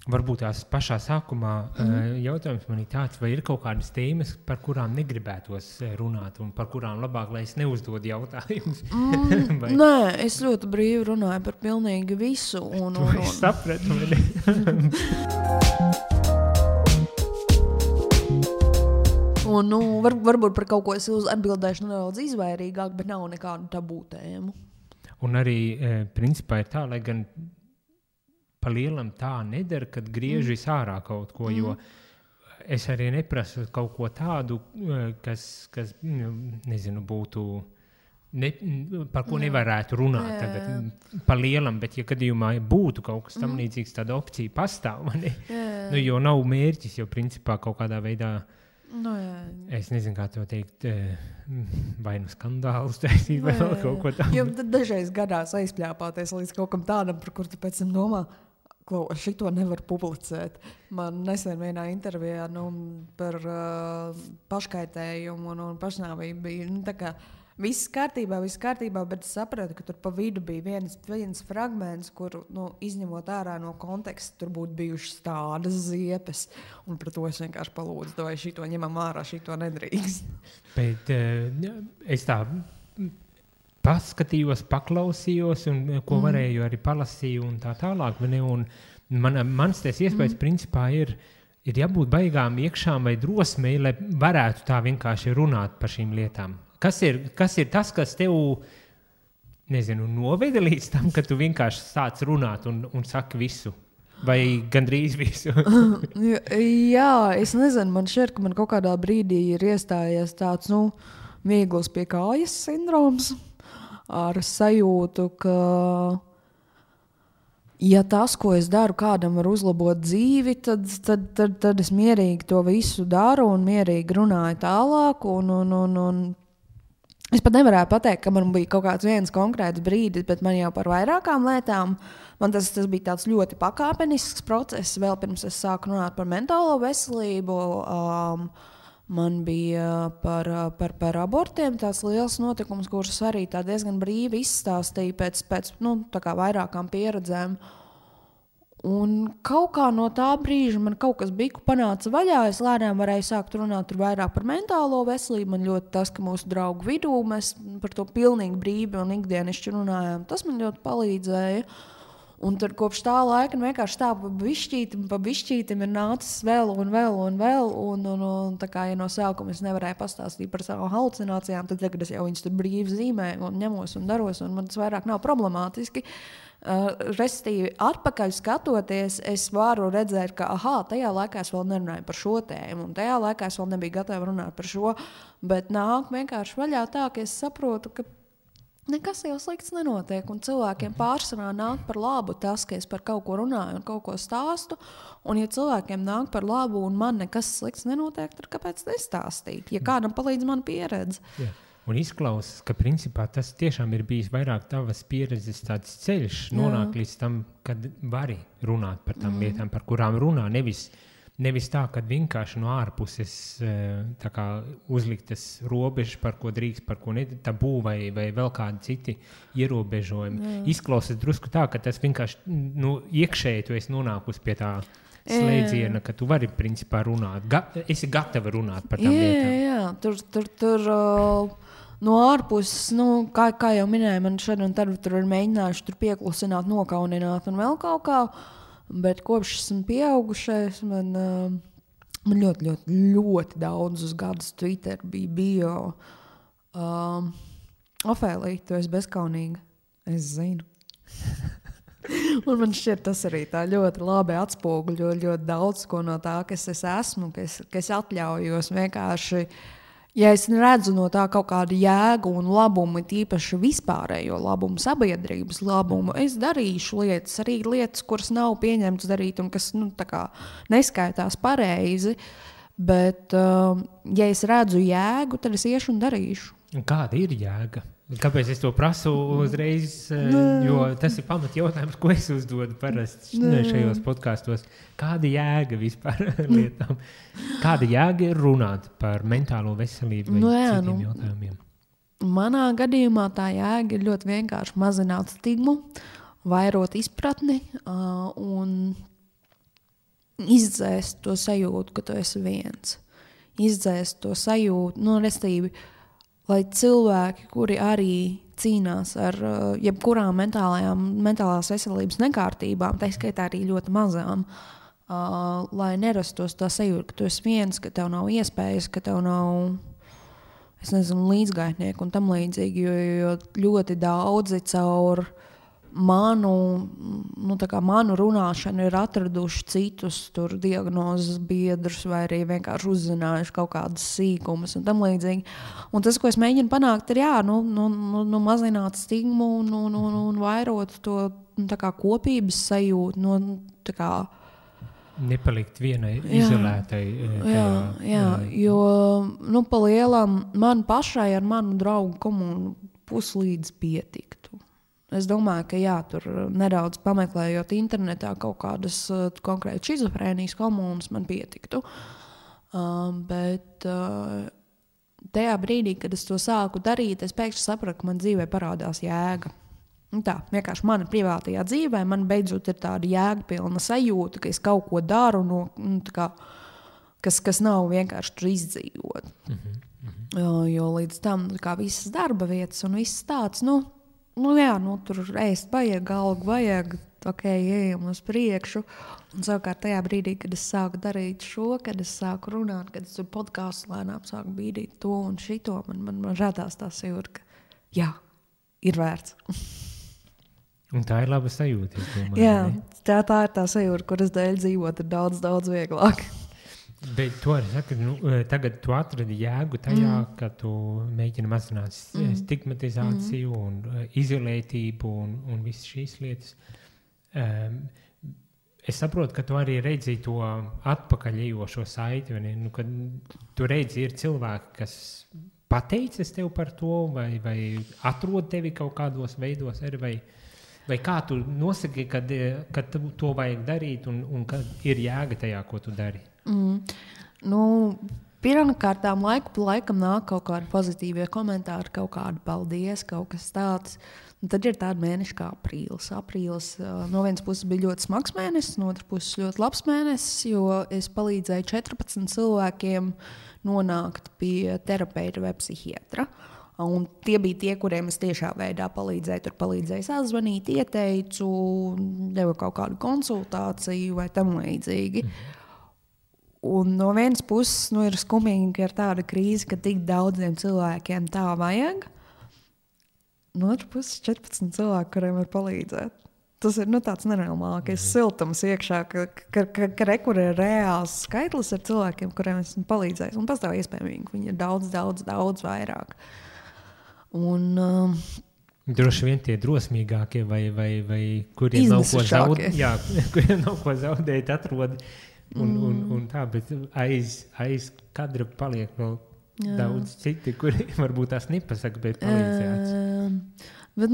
varbūt tās pašā sākumā jautājums man ir tāds, vai ir kaut kādas tēmas, par kurām negribētos runāt un par kurām labāk, lai es neuzdodu jautājumus? Nē, es ļoti brīvi runāju par pilnīgi visu. Es sapratu, vai ne? Un, varbūt par kaut ko es atbildēšu nedaudz izvairīgāk, bet nav nekādu tabū tēmu. Un arī, principā, ir tā, lai gan pa lielam tā nedara, kad griež ārā kaut ko, jo es arī neprasu kaut ko tādu, kas nezinu, būtu, par ko nevarētu runāt tagad pa lielam, bet ja gadījumā būtu kaut kas tam līdzīgs, tāda opcija pastāv, jo nav mērķis, jo principā kaut kādā veidā es nezinu, kā to teikt, vai nu skandālus taisīt, vai vēl kaut ko tādu. Jo dažreiz gadās aizpļāpāties līdz kaut kam tādam, par kur tu pēc tam domā, šito nevar publicēt. Man nesen vienā intervijā par paškaitējumu un pašnāvību bija tā kā viss kārtībā, bet es sapratu, ka tur pa vidu bija viens fragments, kur, izņemot ārā no konteksta, tur būtu bijušas tādas ziepes, un par to es vienkārši palūdzu, vai šito ņemam ārā, šito nedrīkst. Bet es tā paskatījos, paklausījos, un ko varēju arī palasīju un tā tālāk. Un mans ties iespējas principā ir jābūt baigām iekšām vai drosmei, lai varētu tā vienkārši runāt par šīm lietām. Kas ir tas, kas tev, nezinu, noveda līdz tam, ka tu vienkārši sāc runāt un saki visu? Vai gandrīz visu? Jā, es nezinu, man šķiet, ka man kaut kādā brīdī ir iestājies tāds, viegls pie kājas sindroms ar sajūtu, ka ja tas, ko es daru, kādam var uzlabot dzīvi, tad es mierīgi to visu daru un mierīgi runāju tālāk un es pat nevarētu pateikt, ka man bija kaut kāds viens konkrēts brīdis, bet man jau par vairākām lietām, man tas bija tāds ļoti pakāpenisks process, vēl pirms es sāku runāt par mentālo veselību, man bija par abortiem tāds liels notikums, kurus arī tā diezgan brīvi izstāstīja pēc tā kā vairākām pieredzēm. Un kaut kā no tā brīža man kaut kas biku panāca vaļā, es lēnām varēju sākt runāt vairāk par mentālo veselību, man ļoti tas, ka mūsu draugu vidū mēs par to pilnīgi brīvi un ikdienišķi runājām, tas man ļoti palīdzēja. Un tad kopš tā laika vienkārši tā pa bišķītim ir nācis vēl, un tā kā, ja no sākuma es nevarēju pastāstīt par savu halucinācijām, tad tagad es jau viņas tur brīvi zīmēju un ņemos un daros, un man tas vairāk nav problemātiski. Restīvi, atpakaļ skatoties, es varu redzēt, ka tajā laikā es vēl nerunāju par šo tēmu, un tajā laikā es vēl nebiju gatava runāt par šo, bet nāk vienkārši vaļā tā, ka es saprotu, ka nekas jau slikts nenotiek, un cilvēkiem pārsvarā nāk par labu tas, ka es par kaut ko runāju un kaut ko stāstu, un ja cilvēkiem nāk par labu un man nekas slikts nenotiek, tad kāpēc nestāstīt, ja kādam palīdz man pieredze? Jā. Un izklausās, ka principā tas tiešām ir bijis vairāk tavas pieredzes tāds ceļš, nonāk līdz tam, kad vari runāt par tām lietām, par kurām runā, nevis tā, kad vienkārši no ārpuses tā kā uzliktas robežas, par ko drīkst, par ko ne, tabū vai vēl kādi citi ierobežojumi. Izklausās drusku tā, ka tas vienkārši iekšēji tu esi nonākusi pie tā slēdziena, ka tu vari principā runāt. Esi gatava runāt par tām lietām. Jā, tur no ārpuses, kā jau minēju, man šad un tad tur ir mēģinājuši tur pieklusināt, nokaunināt un vēl kaut kā, bet kopš esmu pieaugušais, man ļoti, ļoti, ļoti daudzus gadus Twitter bija bio. Ofēlija, tu esi bezkaunīga. Es zinu. Un man šķiet, tas arī tā ļoti labi atspoguļo ļoti daudz ko no tā, kas es esmu, kas atļaujos vienkārši. Ja es redzu no tā kaut kādu jēgu un labumu, tīpaši vispārējo labumu, sabiedrības labumu, es darīšu lietas, arī lietas, kuras nav pieņemtas darīt un kas tā kā neskaitās pareizi, bet ja es redzu jēgu, tad es iešu un darīšu. Un kāda ir jēga? Kāpēc es to prasu uzreiz? Jo tas ir pamat jautājums, ko es uzdodu parasti šajos podkastos. Kāda jēga vispār lietām? Kāda jēga ir runāt par mentālo veselību vai citiem jautājumiem? Manā gadījumā tā jēga ir ļoti vienkārši mazināt stigmu, vairot izpratni un izdzēst to sajūtu, ka tu esi viens. Izdzēst to sajūtu, restīvi, lai cilvēki, kuri arī cīnās ar jebkurām mentālās veselības nekārtībām, tā skaitā arī ļoti mazām, lai nerastos tā sajūta, ka tu esi viens, ka tev nav iespējas, ka tev nav, es nezinu, līdzgaitnieku un tam līdzīgi, jo ļoti daudzi caur manu runāšanu ir atraduši citus tur diagnozes biedrus vai arī vienkārši uzzinājuši kaut kādas sīkumus un tam līdzīgi. Un tas, ko es mēģinu panākt, ir mazināt stigmu un vairot to kopības sajūtu, nepalikt vienai izolētai. Jo pa lielam man pašai ar manu draugu komunu puslīdz pietiktu. Es domāju, ka tur nedaudz pameklējot internetā kaut kādas konkrēti šizofrēnijas komunas man pietiktu. Bet tajā brīdī, kad es to sāku darīt, es pēkšņi sapratu, ka man dzīvē parādās jēga. Tā, vienkārši mana privātajā dzīvē man beidzot ir tāda jēgpilna sajūta, ka es kaut ko daru, kas nav vienkārši tur izdzīvot. Jo līdz tam visas darba vietas un viss tāds, tur ēst vajag, algu vajag, ejam uz priekšu. Un savukārt tajā brīdī, kad es sāku darīt šo, kad es sāku runāt, kad es tur podkāstu lēnām sāku bīdīt to un šito, man radās tā sajūta, ka ir vērts. Un tā ir laba sajūta, es domāju. Jā, tā ir tā sajūta, kuras dēļ dzīvot ir daudz, daudz vieglāk. Bet to arī saka, tagad tu atradi jēgu tajā, ka tu mēģini mazināt stigmatizāciju un izolētību un visas šīs lietas. Es saprotu, ka tu arī redzi to atpakaļejošo saiti, kad tu redzi, ir cilvēki, kas pateicis tev par to vai atrod tevi kaut kādos veidos, vai kā tu nosaki, kad to vajag darīt un kad ir jēga tajā, ko tu dari? Pirmkārtām laiku pa laikam nāk kaut kādi pozitīvie komentāri, kaut kādi paldies, kaut kas tāds. Un tad ir tādi mēneši kā aprīlis. Aprīlis no vienas puses bija ļoti smags mēnesis, no otras puses ļoti labs mēnesis, jo es palīdzēju 14 cilvēkiem nonākt pie terapeita vai psihiatra. Un tie bija tie, kuriem es tiešā veidā palīdzēju. Tur palīdzēju sazvanīt, ieteicu, devu kaut kādu konsultāciju vai tam līdzīgi. Un no vienas puses ir skumīgi, ka ir tāda krīze, ka tik daudziem cilvēkiem tā vajag. No otras puses 14 cilvēki, kuriem var palīdzēt. Tas ir tāds nenormālākais siltums iekšā, ka rekur ir reāls skaitlis ar cilvēkiem, kuriem esmu palīdzējis. Un pastāv iespējami, ka viņi ir daudz, daudz, daudz vairāk. Droši vien tie drosmīgākie vai kuriem nav ko zaudēt, atrod un tā, bet aiz kadra paliek vēl daudz citi, kuri varbūt tās nepasaka, bet palīdzēts. Bet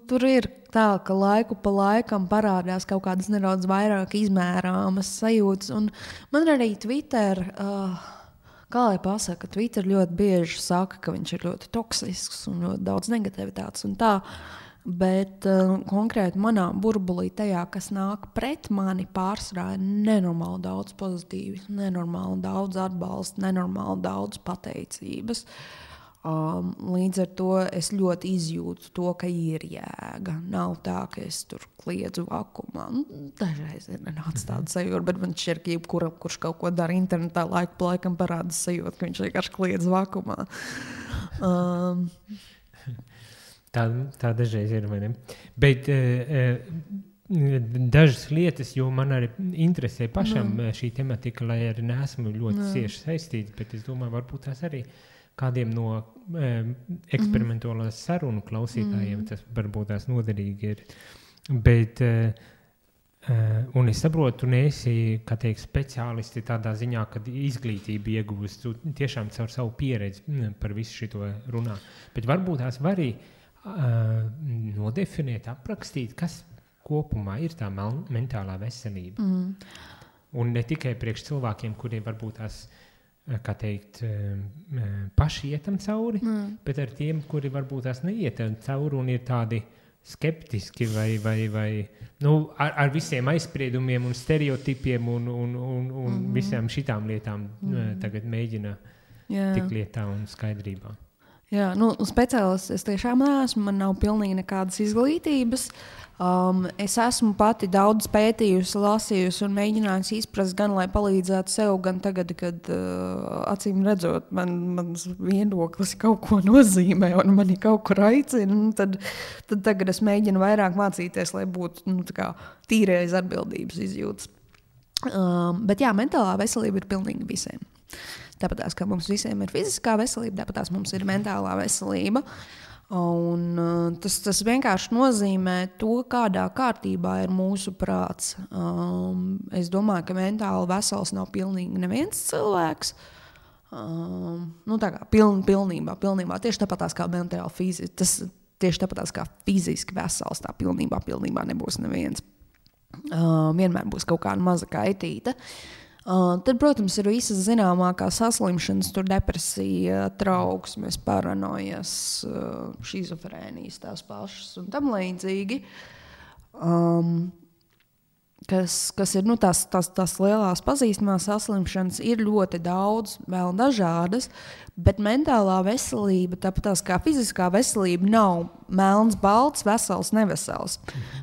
tur ir tā, ka laiku pa laikam parādās kaut kādas nedaudz vairāk izmērāmas sajūtas. Un man arī Twitter, kā lai pasaka, Twitter ļoti bieži saka, ka viņš ir ļoti toksisks un ļoti daudz negativitātes un tā. Bet konkrēti manā burbulī tajā, kas nāk pret mani, pārsvarā ir nenormāli daudz pozitīvas, nenormāli daudz atbalsta, nenormāli daudz pateicības. Līdz ar to es ļoti izjūtu to, ka ir jēga. Nav tā, ka es tur kliedzu vakumā. Dažreiz ir nenāc tāda sajūta, bet man šķiet, ka jebkuram, kurš kaut ko dara internetā, laiku pa laikam parāda sajūta, ka viņš vienkārši kliedz vakumā. Tā dažreiz ir, vai ne? Bet dažas lietas, jo man arī interesē pašam šī tematika, lai arī neesmu ļoti cieši saistīts, bet es domāju, varbūt tās arī kādiem no eksperimentālās sarunu klausītājiem tas varbūt tās noderīgi ir. Bet, un es saprotu, tu neesi, kā teikt, speciālisti tādā ziņā, kad izglītību iegūst, tu tiešām caur savu pieredzi par visu šito runā. Bet varbūt tās var arī nodefinēt, aprakstīt, kas kopumā ir tā mentālā veselība. Un ne tikai priekš cilvēkiem, kuriem varbūt tās, kā teikt, paši ietam cauri, bet ar tiem, kuri varbūt tās neietam cauri un ir tādi skeptiski vai ar visiem aizspriedumiem un stereotipiem un visām šitām lietām tagad mēģina tik lietā un skaidrībā. Jā, speciālists es tiešām neesmu, man nav pilnīgi nekādas izglītības. Es esmu pati daudz pētījusi, lasījusi un mēģinājusi izprast gan, lai palīdzētu sev, gan tagad, kad acīm redzot, mans viedoklis kaut ko nozīmē un mani kaut kur aicina, tad tagad es mēģinu vairāk mācīties, lai būtu tīrais atbildības izjūtas. Bet jā, mentālā veselība ir pilnīgi visiem. Tāpatās, kā mums visiem ir fiziskā veselība, tāpatās mums ir mentālā veselība. Un tas vienkārši nozīmē to, kādā kārtībā ir mūsu prāts. Es domāju, ka mentāli vesels nav pilnīgi neviens cilvēks. Tā kā pilnībā. Tieši tāpatās kā mentāli fiziski. Tieši tāpatās kā fiziski vesels, tā pilnībā nebūs neviens. Vienmēr būs kaut kāda maza kaitīta. Tad, protams, ir visas zināmākās saslimšanas, tur depresija, trauksmes, paranojas, šizofrēnijas tās pašas un tam līdzīgi. Kas ir tās lielās pazīstamās saslimšanas, ir ļoti daudz, vēl dažādas, bet mentālā veselība, tāpat kā fiziskā veselība, nav melns, balts, vesels, nevesels.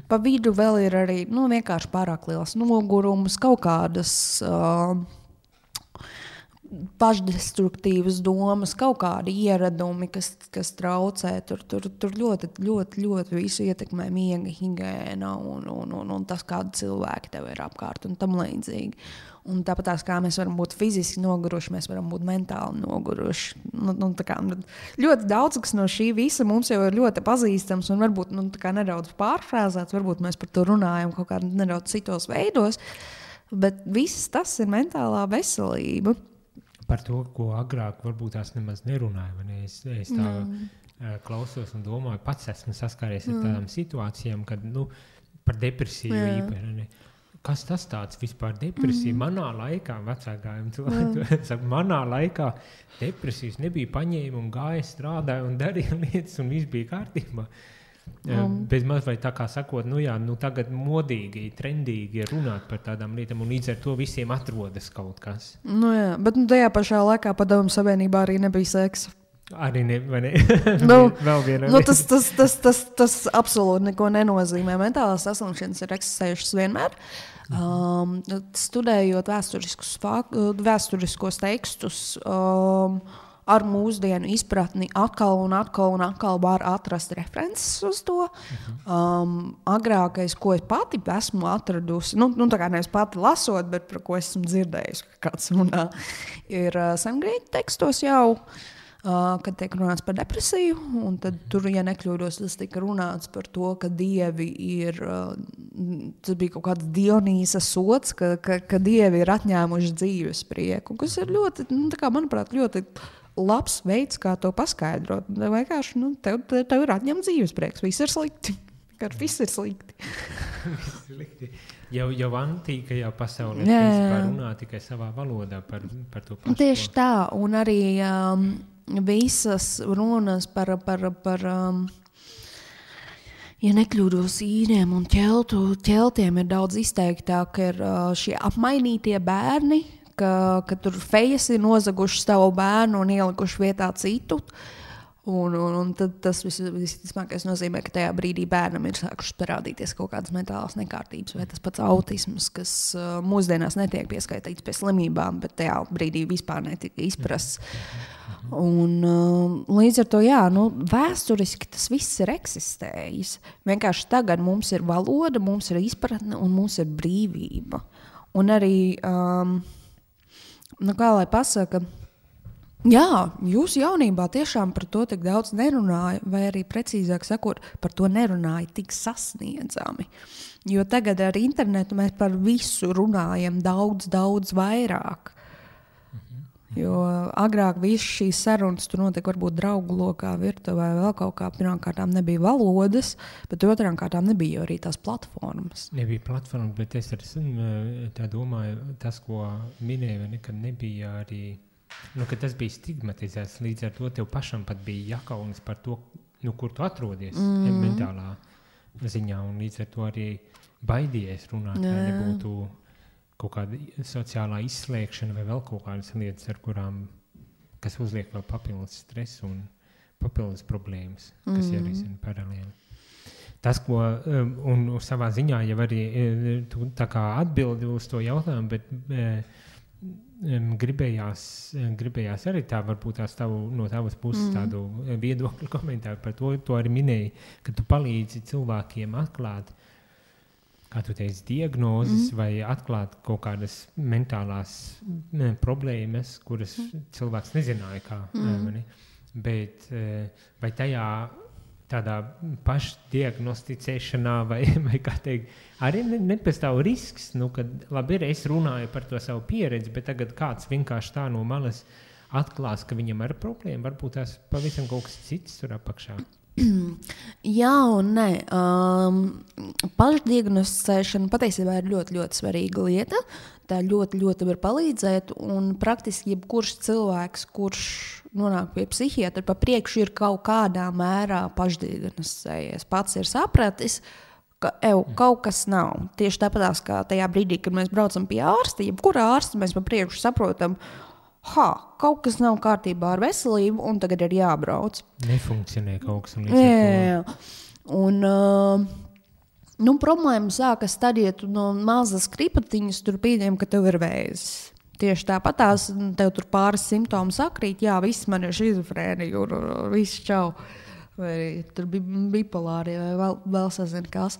Pa vidu vēl ir arī vienkārši pārāk liels nogurums, kaut kādas pašdestruktīvas domas, kaut kādi ieradumi, kas traucē. Tur ļoti visu ietekmē miega higiēna un tas, kādi cilvēki tev ir apkārt un tam līdzīgi. Un tāpat kā mēs varam būt fiziski noguruši, mēs varam būt mentāli noguruši. Ļoti daudz, kas no šī visa mums jau ir ļoti pazīstams un varbūt nedaudz pārfrāzēts, varbūt mēs par to runājam kaut kā nedaudz citos veidos, bet viss tas ir mentālā veselība. Par to, ko agrāk varbūt tās nemaz nerunāju. Es tā klausos un domāju, pats esmu saskāries ar tādām situācijām, kad par depresiju īpaši. Kas tas tāds vispār depresija? Manā laikā, vecākajiem cilvēkiem, manā laikā depresijas nebija, paņēma un gāja, strādāja un darīja lietas un viss bija kārtībā. Bez maz vai tā kā sakot, tagad modīgi, trendīgi ir runāt par tādām lietām un līdz ar to visiem atrodas kaut kas. Bet tajā pašā laikā Padomju Savienībā arī nebija seksa. Arī ne. Vēl viena lieta. Tas absolūti neko nenozīmē. Mentālās saslimšanas ir eksistējušas vienmēr. Studējot vēsturiskos tekstus, ar mūsdienu izpratni atkal var atrast references uz to. Agrākais, ko es pati esmu atradusi, tā kā nevis pati lasot, bet par ko esmu dzirdējusi, ka kāds runā, ir sengrieķu tekstos jau, kad tiek runāts par depresiju, un tad tur, ja nekļūdos, tas tika runāts par to, ka dievi ir, tas bija kaut kāds Dionīsa sots, ka dievi ir atņēmuši dzīves prieku, kas ir ļoti, manuprāt, ļoti labs veids, kā to paskaidrot. Vienkārši, tev ir atņemts dzīves prieks. Viss ir slikti. Viss ir slikti. Jau antīkajā pasaulē principā runā tikai savā valodā par to pašu. Tieši tā, un arī visas runas par ja nekļūdos īriem un ķeltiem ir daudz izteiktāk, ir šie apmainītie bērni, ka tur fejas ir nozaguši savu bērnu un ielikuši vietā citu. Un tad tas visticamākais nozīmē, ka tajā brīdī bērnam ir sākušas parādīties kaut kādas mentālās nekārtības vai tas pats autisms, kas mūsdienās netiek pieskaitīts pie slimībām, bet tajā brīdī vispār netika izprasts. Un līdz ar to, vēsturiski tas viss ir eksistējis. Vienkārši tagad mums ir valoda, mums ir izpratne un mums ir brīvība. Un arī kā lai pasaka, jūs jaunībā tiešām par to tik daudz nerunāja, vai arī precīzāk sakot, par to nerunāja tik sasniedzami. Jo tagad ar internetu mēs par visu runājam daudz vairāk. Jo agrāk visas šīs sarunas tur notika varbūt draugu lokā, virtuvē, vēl kaut kā. Pirmām kārtām nebija valodas, bet otrām kārtām nebija arī tās platformas. Nebija platformas, bet es tā domāju, tas, ko minēju, nekad nebija arī, ka tas bija stigmatizēts. Līdz ar to tev pašam pat bija jākaunas par to, kur tu atrodies mentālā ziņā, un līdz ar to arī baidījies runāt, lai nebūtu kaut kāda sociālā izslēgšana vai vēl kaut kādas lietas, ar kurām, kas uzliek vēl papildus stresu un papildus problēmas, kas jārisina paralēli. Tas, ko, un savā ziņā jau arī tu tā kā atbildi uz to jautājumu, bet gribējās arī tā, varbūt no tavas puses tādu viedokļu komentāru par to arī minēji, ka tu palīdzi cilvēkiem atklāt, kā tu teici, diagnozes vai atklāt kaut kādas mentālās problēmas, kuras cilvēks nezināja kā. Bet vai tajā tādā pašdiagnosticēšanā vai kā teikt, arī nepastāv risks, kad labi ir, es runāju par to savu pieredzi, bet tagad kāds vienkārši tā no malas atklās, ka viņam ir problēma, varbūt tās pavisam kaut kas cits tur apakšā. Jā un nē. Pašdiagnosticēšana patiesībā ir ļoti, ļoti svarīga lieta. Tā ļoti, ļoti var palīdzēt, un praktiski jebkurš cilvēks, kurš nonāk pie psihiatra, pa priekšu ir kaut kādā mērā pašdiagnosticējies. Pats ir sapratis, ka kaut kas nav. Tieši tāpatās, kā tajā brīdī, kad mēs braucam pie ārsta, jebkurā ārsta mēs pa priekšu saprotam, kaut kas nav kārtībā ar veselību, un tagad ir jābrauc. Nefunkcionē kaut kas. Jā. Un problēma sākas tad, ja tu no mazas kripatiņas tur pieņem, ka tev ir vēzis. Tieši tāpatās tev tur pāris simptomi sakrīt, jā, viss man ir šizofrēnija, viss čau. Vai tur bipolāri, vai vēl sazina kas.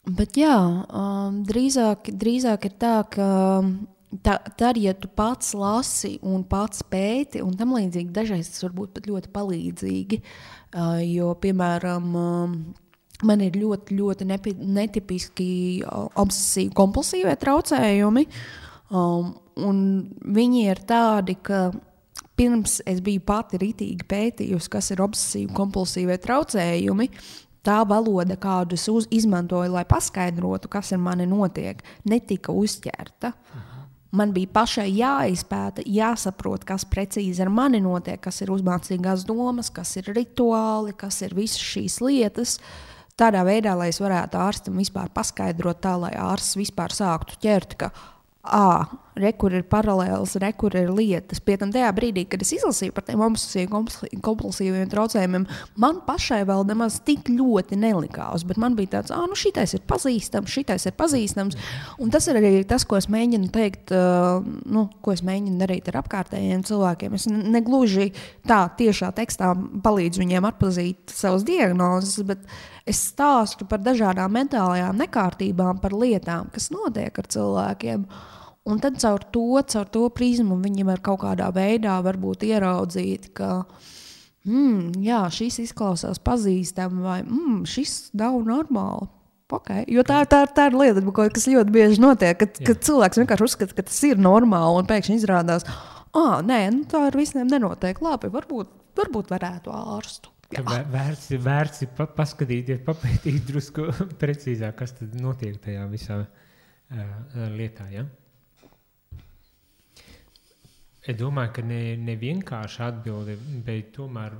Bet jā, drīzāk ir tā, ka tad, ja tu pats lasi un pats pēti, un tam līdzīgi dažreiz tas var būt pat ļoti palīdzīgi, jo, piemēram, man ir ļoti, ļoti netipiski obsesīvi kompulsīvie traucējumi, un viņi ir tādi, ka pirms es biju pati ritīgi pētījusi, kas ir obsesīvi kompulsīvie traucējumi, tā valoda, kādu es izmantoju, lai paskaidrotu, kas ar mani notiek, netika uzķerta. Man bija pašai jāizpēta, jāsaprot, kas precīzi ar mani notiek, kas ir uzmācīgās domas, kas ir rituāli, kas ir visas šīs lietas. Tādā veidā, lai es varētu ārstam vispār paskaidrot tā, lai ārsts vispār sāktu ķert, ka kur ir paralēls, kur ir lietas. Pie tam tajā brīdī, kad es izlasīju par tiem kompulsīviem traucējumiem, man pašai vēl nemaz tik ļoti nelikās, bet man bija tāds, šitais ir pazīstams, un tas ir arī tas, ko es mēģinu teikt, ko es mēģinu darīt ar apkārtējiem cilvēkiem. Es negluži tā tiešā tekstā palīdzu viņiem atpazīt savas diagnozes, bet es stāstu par dažādām mentālajām nekārtībām, par lietām, kas notiek ar cilvēkiem. Un tad caur to prizmu viņi var kaut kādā veidā varbūt ieraudzīt, ka jā, šis izklausās pazīstami vai šis nav normāli. Okay. Jo tā ir lieta, kas ļoti bieži notiek, kad cilvēks vienkārši uzskata, ka tas ir normāli un pēkšņi izrādās, nē, tā ar visiem nenotiek. Labi, varbūt varētu ārstu. Vērts paskatīties, papētīt drusku precīzāk, kas tad notiek tajā visā lietā, ja? Es domāju, ka ne vienkārši atbildi, bet tomēr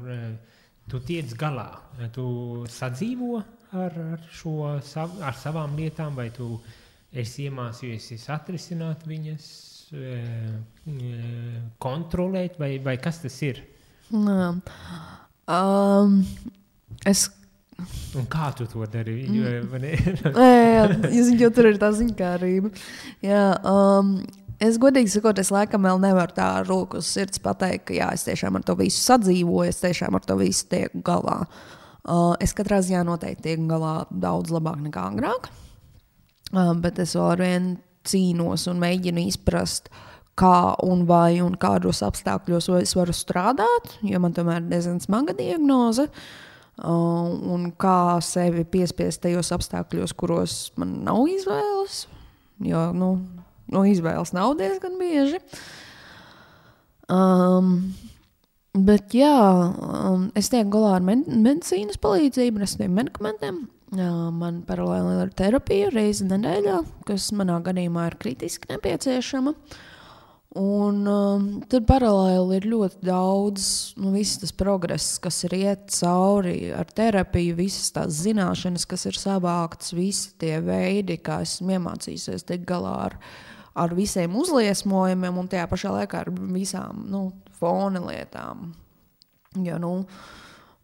tu tiec galā. Tu sadzīvo ar savām lietām, vai tu esi iemācījusies atrisināt viņas, kontrolēt, vai kas tas ir? Un kā tu to dari? Jo tur ir tā ziņkārība. Jā, es godīgi sakot, es laikam vēl nevaru tā roku uz sirds pateikt, ka jā, es tiešām ar to visu sadzīvoju, es tiešām ar to visu tieku galā. Es katrā ziņā noteikti tieku galā daudz labāk nekā agrāk, bet es vēl arvien cīnos un mēģinu izprast, kā un vai un kādos apstākļos es varu strādāt, jo man tomēr ir diezgan smaga diagnoze, un kā sevi piespiest tajos apstākļos, kuros man nav izvēles, jo, izvēles nav diezgan bieži. Bet jā, es tieku galā ar medicīnas palīdzību, ar saviem medikamentiem. Man paralēli ir terapija reizi nedēļā, kas manā gadījumā ir kritiski nepieciešama. Un tad paralēli ir ļoti daudz, viss tas progress, kas ir iet cauri ar terapiju, visas tās zināšanas, kas ir savāktas, visi tie veidi, kā esmu iemācījusies tikt galā ar visiem uzliesmojumiem un tajā pašā laikā ar visām fona lietām. Jo,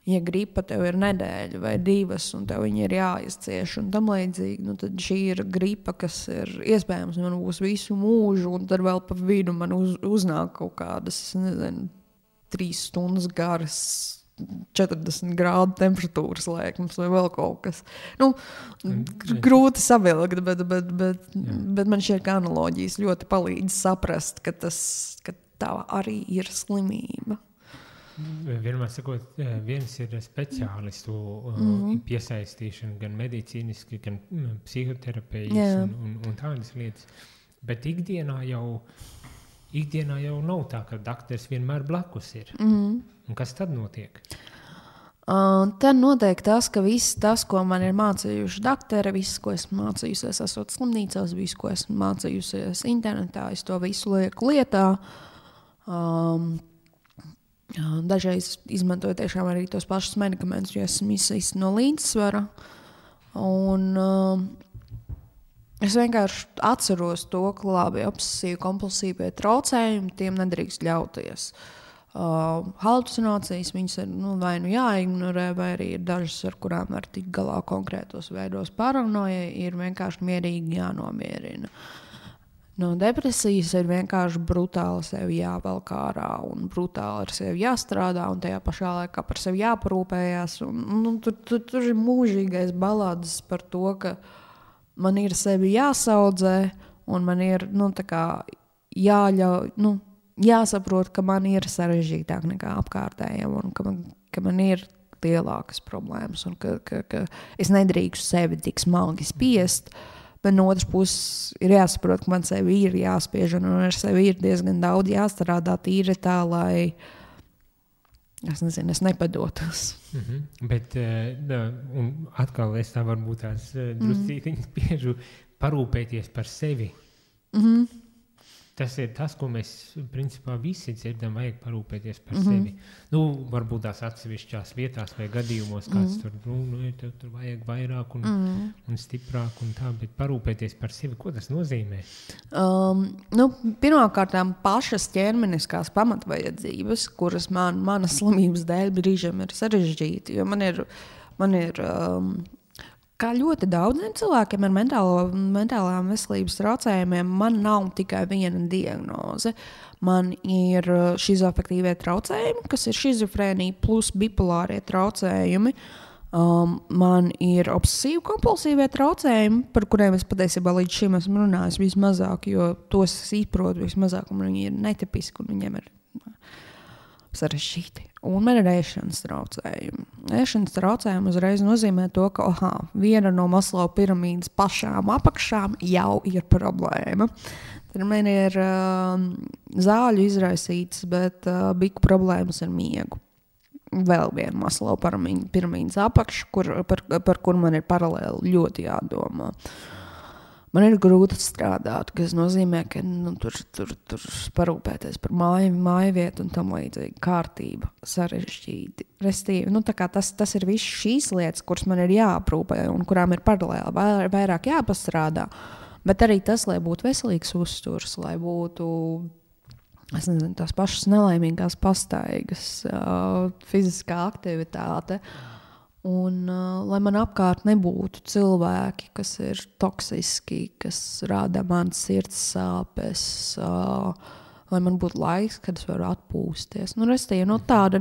ja gripa tev ir nedēļa vai 2, un tev viņi ir jāizcieš un tam līdzīgi, tad šī ir gripa, kas ir iespējams man būs visu mūžu, un tad vēl pa vidu man uznāk kaut kādas, 3 stundas garas, 40 grādu temperatūras lēkums vai vēl kaut kas. Grūti savilkt, bet man šķiet, ka analoģijas ļoti palīdz saprast, ka tā arī ir slimība. Vienmēr sakot, viens ir speciālistu piesaistīšana, gan medicīniski, gan psihoterapijas un tādas lietas. Bet ikdienā jau nav tā, ka dakteris vienmēr blakus ir. Un kas tad notiek? Tad notiek tas, ka viss tas, ko man ir mācījuši dakteri, viss, ko esmu mācījusies, esot slimnīcās, viss, ko esmu mācījusies internetā, es to visu lieku lietā. Dažreiz izmantoju tiešām arī tos pašus medikamentus, jo esmu izsist no līdzsvara. Un es vienkārši atceros to, ka labi obsesīvi kompulsīvie traucējumi, tiem nedrīkst ļauties. Halucinācijas, viņas ir vai jāignorē, vai arī ir dažas, ar kurām var tikt galā konkrētos veidos. Paranoja ir vienkārši mierīgi jānomierina. No depresijas ir vienkārši brutāli sevi jāvelk ārā un brutāli ar sevi jāstrādā un tajā pašā laikā par sevi jāparūpējās. Tur ir mūžīgais balāds par to, ka man ir sevi jāsaudzē un man ir jāsaprot, ka man ir sarežģītāk nekā apkārtējiem un ka man ir lielākas problēmas un ka es nedrīkstu sevi tik smagi spiest. Bet no otras puses ir jāsaprot, ka man sevi ir jāspiež un ar sevi ir diezgan daudz jāstrādā tīri tā, lai es nepadotos. Bet un atkal es tā varbūt tās druscītiņas spiežu parūpēties par sevi. Tas ir tas, ko mēs principā visi dzirdam, vajag parūpēties par sevi. Varbūt tās atsevišķās vietās vai gadījumos kāds tur vajag vairāk un stiprāk un tā, bet parūpēties par sevi, ko tas nozīmē? Pirmkārtām pašas ķermeniskās pamatvajadzības, kuras manas slimības dēļ brīžiem ir sarežģīti, jo man ir kā ļoti daudziem cilvēkiem ar mentālām veselības traucējumiem, man nav tikai viena diagnoze. Man ir šizoafektīvie traucējumi, kas ir šizofrēnija plus bipolārie traucējumi. Man ir obsesīvi kompulsīvie traucējumi, par kuriem es patiesībā līdz šim esmu runājis vismazāk, jo tos es izprotu vismazāk, un viņi ir netipiski, un viņiem ir sarežģīti. Un man ir ēšanas traucējumi. Ēšanas traucējumi uzreiz nozīmē to, ka viena no Maslow piramīdas pašām apakšām jau ir problēma. Tad man ir zāļu izraisītas, bet biku problēmas ar miegu. Vēl viena Maslow piramīdas apakša, par kur man ir paralēli ļoti jādomā. Man ir grūti strādāt, kas nozīmē, ka tur parūpēties par māju vietu un tam līdzīgi kārtība sarežģīti. Restīvi, tas ir viss šīs lietas, kuras man ir jāaprūpē un kurām ir paralēli vairāk jāpastrādā. Bet arī tas, lai būtu veselīgs uzturs, lai būtu tās pašas nelaimīgās pastaigas, fiziskā aktivitāte. Un lai man apkārt nebūtu cilvēki, kas ir toksiski, kas rada man sirds sāpes, lai man būtu laiks, kad es varu atpūsties. Restīvi, tāda,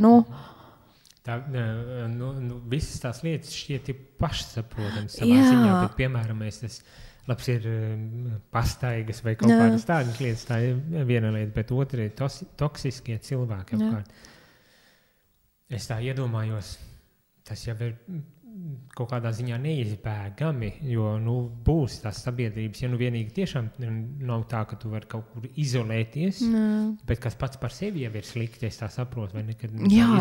visas tās lietas šķiet ir pašsaprotams savā ziņā, bet, piemēram, tas labs ir pastaigas vai kaut kādas tādas lietas, tā ir viena lieta, bet otra ir toksiskie cilvēki apkārt. Es tā iedomājos, tas jau ir kaut kādā ziņā neizbēgami, jo būs tās sabiedrības, ja vienīgi tiešām nav tā, ka tu vari kaut kur izolēties, bet kas pats par sevi jau ir slikti, es tā saprotu. Vai ne,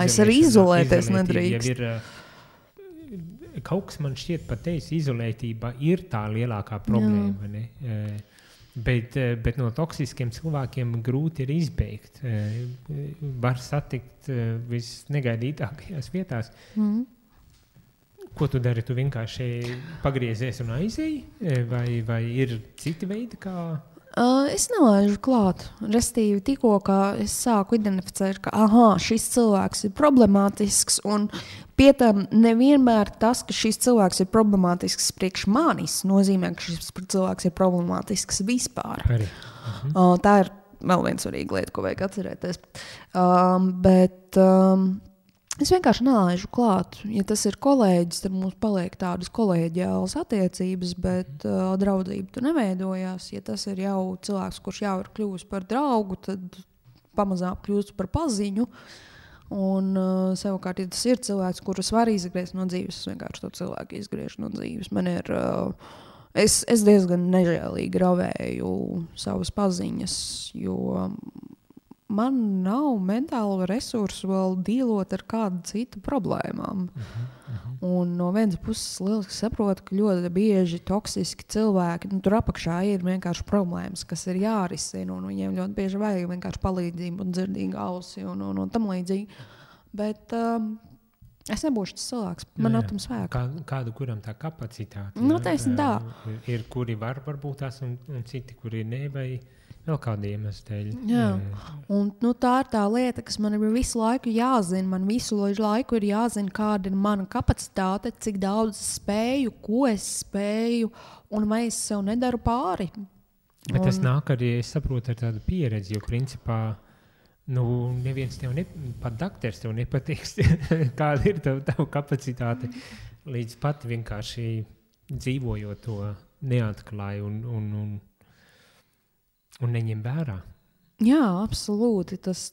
es arī izolēties nedrīkst. Kaut kas man šķiet par tevis izolētība ir tā lielākā problēma. Bet no toksiskiem cilvēkiem grūti ir izbeigt. Var satikt visnegaidītākajās vietās. Ko tu dari? Tu vienkārši pagriezies un aizēji? Vai ir citi veidi, kā... Es nelaižu klāt. Restīvi tikko, kā es sāku identificēt, ka šis cilvēks ir problemātisks, un pie tam nevienmēr tas, ka šis cilvēks ir problemātisks priekš manis, nozīmē, ka šis cilvēks ir problemātisks vispār. Arī. Tā ir vēl viena svarīga lieta, ko vajag atcerēties. Bet es vienkārši nelaižu klāt. Ja tas ir kolēģis, tad mums paliek tādas kolēģiālas attiecības, bet draudzība tur neveidojās. Ja tas ir jau cilvēks, kurš jau ir kļuvis par draugu, tad pamazām kļūst par paziņu. Un savukārt, ja tas ir cilvēks, kurus var izgriezt no dzīves, es vienkārši to cilvēku izgriežu no dzīves. Man ir... Es diezgan nežēlīgi ravēju savas paziņas, jo man nav mentālo resursu vēl dīlot ar kādu citu problēmām. Un no vienas puses lieliski saprotu, ka ļoti bieži toksiski cilvēki, tur apakšā ir vienkārši problēmas, kas ir jārisina, un viņiem ļoti bieži vajag vienkārši palīdzību un dzirdīgu ausi un tam līdzīgi. Bet es nebūšu tas cilvēks, man nav tam spēka. Kādu, kuram tā kapacitāte? Noteikti tā. Ir, kuri varbūt tās, un citi, kuri ne, vai vēl kādi iemesli dēļ. Jā, un tā ir tā lieta, kas man ir visu laiku jāzina. Man visu laiku ir jāzina, kāda ir mana kapacitāte, cik daudz es spēju, ko es spēju, un vai es sev nedaru pāri. Bet tas nāk arī, es saprotu, ar tādu pieredzi, jo principā neviens tev pat dakteris tev nepatiks, kāda ir tava kapacitāte, līdz pat vienkārši dzīvojot to neatklāju un neņem vērā. Jā, absolūti. Tas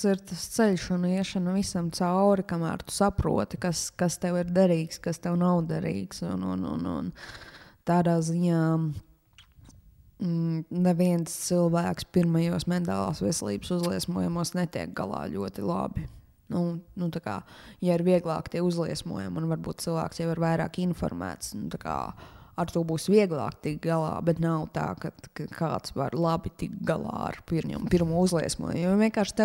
ir tas ceļš un iešana visam cauri, kamēr tu saproti, kas tev ir derīgs, kas tev nav derīgs. Un tādā ziņā neviens cilvēks pirmajos mentālās veselības uzliesmojumos netiek galā ļoti labi. Tā kā, ja ir vieglāk tie uzliesmojumi, un varbūt cilvēks jau ir vairāk informēts, tā kā ar to būs vieglāk tikt galā, bet nav tā, ka kāds var labi tikt galā ar pirmo uzliesmojumu. Jo vienkārši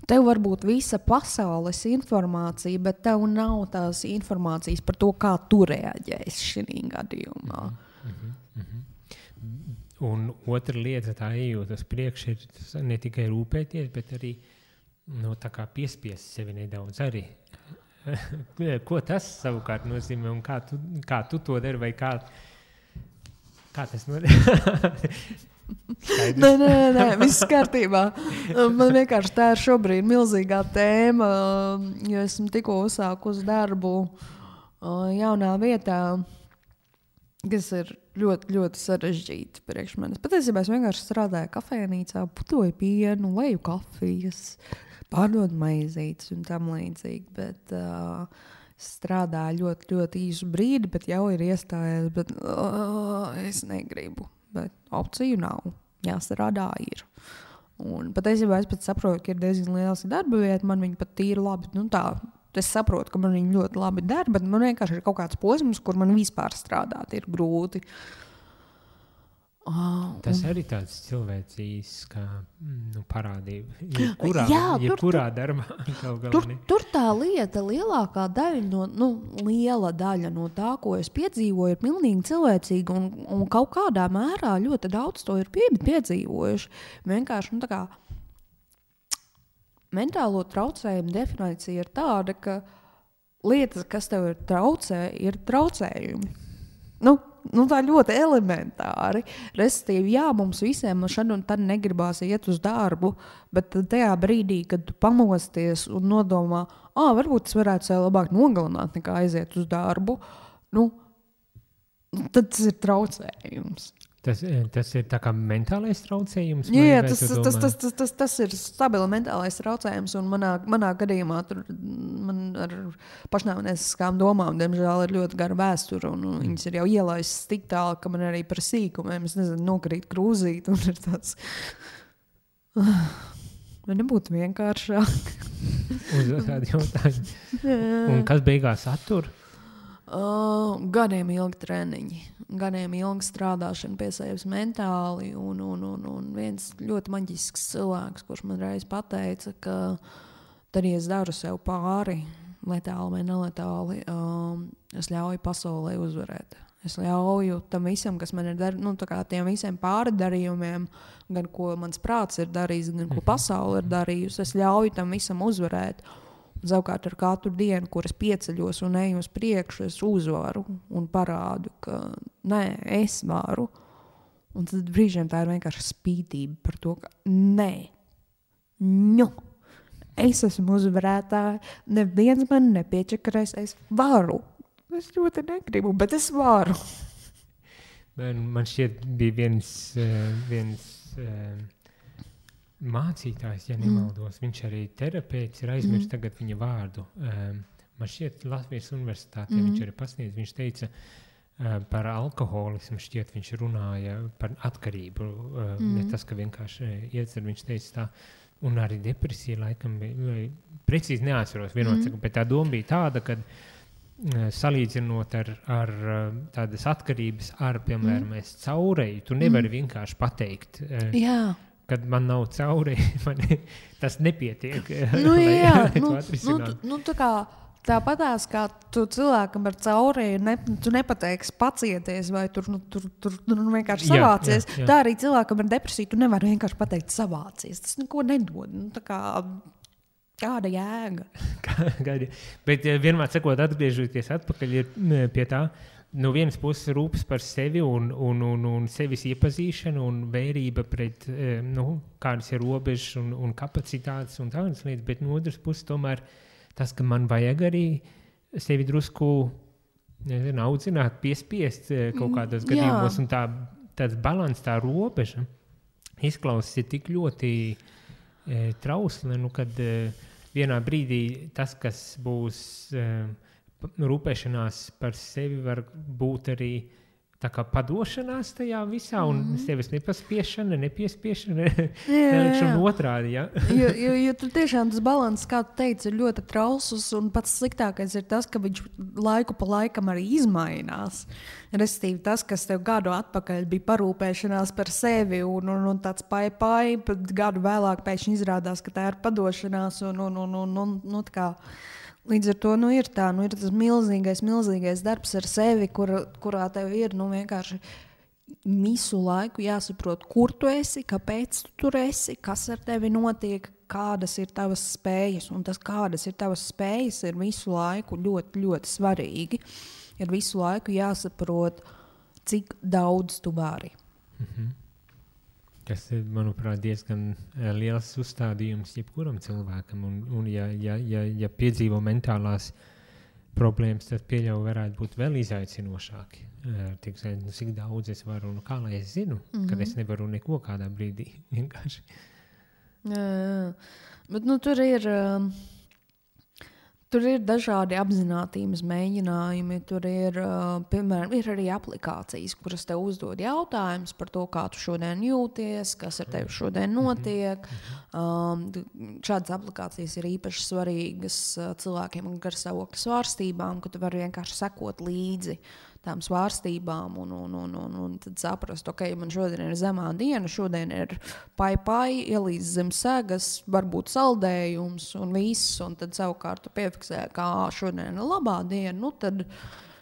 tev var būt visa pasaules informācija, bet tev nav tās informācijas par to, kā tu reaģēsi šī gadījumā. Un otra lieta, tā ejot uz priekšu, ir ne tikai rūpēties, bet arī tā kā piespiest sevi nedaudz arī. Ko tas savukārt nozīmē un kā tu to dari vai kā tas nozīmē? Nē, viss kārtībā. Man vienkārši tā ir šobrīd milzīgā tēma, jo esmu tikko uzsākusi darbu jaunā vietā, kas ir ļoti, ļoti sarežģīti priekš manis. Patiesībā es vienkārši strādāju kafejnīcā, putoju pienu, leju kafijas, pārdod maizītes un tam līdzīgi, bet strādāju ļoti, ļoti īsu brīdi, bet jau ir iestājies, bet es negribu, bet opciju nav, jāstrādā ir. Un patiesībā es pat saprotu, ka ir diezgan liels darba vieta, man viņa pat tīri labi, es saprotu, ka man viņa ļoti labi der, bet man vienkārši ir kaut kāds posms, kur man vispār strādāt ir grūti. Tas arī tāds cilvēcīs kā parādība. Jebkurā darbā. Tur tā lieta, lielākā daļa liela daļa no tā, ko es piedzīvoju, ir pilnīgi cilvēcīga un kaut kādā mērā ļoti daudz to ir piedzīvojuši. Vienkārši, tā kā mentālo traucējumu definīcija ir tāda, ka lietas, kas tev ir traucējumi. Tā ļoti elementāri. Respektīvi, jā, mums visiem šad un tad negribās iet uz darbu, bet tajā brīdī, kad tu pamosties un nodomā, varbūt es varētu sev labāk nogalināt nekā aiziet uz darbu, tad tas ir traucējums. Tas ir tā kā mentālais traucējums? Jā, tas ir stabili mentālais traucējums, un manā gadījumā tur man ar pašnāvnieciskām domām, diemžēl, ir ļoti gara vēsture, un viņas ir jau ielaistas tik tālu, ka man arī par sīkumiem, es nezinu, nokrīt krūzīt, un ir tāds... Vai nebūtu vienkāršāk? Uzdot tādu jautājumu. Un kas beigās attur? Gadiem ilgi treniņi, gadiem ilgi strādāšana pie sevis mentāli, un viens ļoti maģisks cilvēks, kurš man reiz pateica, ka tad, ja es daru sev pāri, letāli vai neletāli, es ļauju pasaulē uzvarēt. Es ļauju tam visam, kas man ir tiem visiem pārdarījumiem, gan ko mans prāts ir darījis, gan ko pasaule ir darījusi, es ļauju tam visam uzvarēt. Savukārt ar katru dienu, kur es pieceļos un eju uz priekšu, es uzvaru un parādu, ka nē, es varu. Un tad brīžiem tā ir vienkārši spītība par to, ka nē, es esmu uzvarētāja, neviens man nepiečakarēs, es varu. Es ļoti negribu, bet es varu. Man šķiet bija viens mācītājs, ja nemaldos, viņš arī terapeits, ir aizmirst tagad viņa vārdu. Man šķiet Latvijas universitātē viņš arī pasniedz, viņš teica par alkoholismu, šķiet viņš runāja par atkarību, ne tas, ka vienkārši iedzer, viņš teica tā, un arī depresija laikam bija, precīzi neatceros vienot, bet tā doma bija tāda, ka salīdzinot ar tādas atkarības ar, piemēram, es caurēju, tu nevari vienkārši pateikt, kad man nav caurēji, tas nepietiek. Tāpatās, kā tu cilvēkam ar caurēju, tu nepateiksi pacieties vai tur vienkārši savācies, tā arī cilvēkam ar depresiju tu nevari vienkārši pateikt savācies. Tas neko nedod. Kāda jēga? Bet vienmēr sakot, atgriežoties atpakaļ pie tā, no vienas puses rūpes par sevi un sevis iepazīšanu un vērība pret, kādas ir robežas un kapacitātes un tādas lietas, bet no otras puses tomēr tas, ka man vajag arī sevi drusku audzināt, piespiest kaut kādos gadījumos, un tāds balans, tā robeža izklausās tik ļoti trausli, kad vienā brīdī tas, kas būs rūpēšanās par sevi, var būt arī tā kā padošanās tajā visā un sevis nepaspiešana, nepiespiešana, nelikšana otrādi. Ja? jo tur tiešām tas balans, kā tu teici, ir ļoti trausls, un pats sliktākais ir tas, ka viņš laiku pa laikam arī izmainās. Restīvi tas, kas tev gadu atpakaļ bija parūpēšanās par sevi un tāds pai, bet gadu vēlāk pēkšņi izrādās, ka tā ir padošanās un tā kā. Līdz ar to ir tas milzīgais darbs ar sevi, kurā tev ir vienkārši visu laiku jāsaprot, kur tu esi, kāpēc tu tur esi, kas ar tevi notiek, kādas ir tavas spējas. Un tas, kādas ir tavas spējas, ir visu laiku ļoti, ļoti svarīgi. Ir visu laiku jāsaprot, cik daudz tu vari. Tas ir, manuprāt, diezgan liels uzstādījums jebkuram cilvēkam. Un ja piedzīvo mentālās problēmas, tad pieļauju varētu būt vēl izaicinošāki. Cik daudz es varu un kā lai es zinu, kad es nevaru neko kādā brīdī vienkārši. Jā. Bet tur ir dažādi apzinātības mēģinājumi. Tur ir, piemēram, ir arī aplikācijas, kuras tev uzdod jautājumus par to, kā tu šodien jūties, kas ar tevi šodien notiek. Šādas aplikācijas ir īpaši svarīgas cilvēkiem ar garstāvokļa svārstībām, ka tu vari vienkārši sekot līdzi tām svārstībām un tad saprast, ok, man šodien ir zemā diena, šodien ir pai, ielīdz zem segas, varbūt saldējums un viss, un tad savukārt tu piefiksē, kā šodien ir labā diena, tad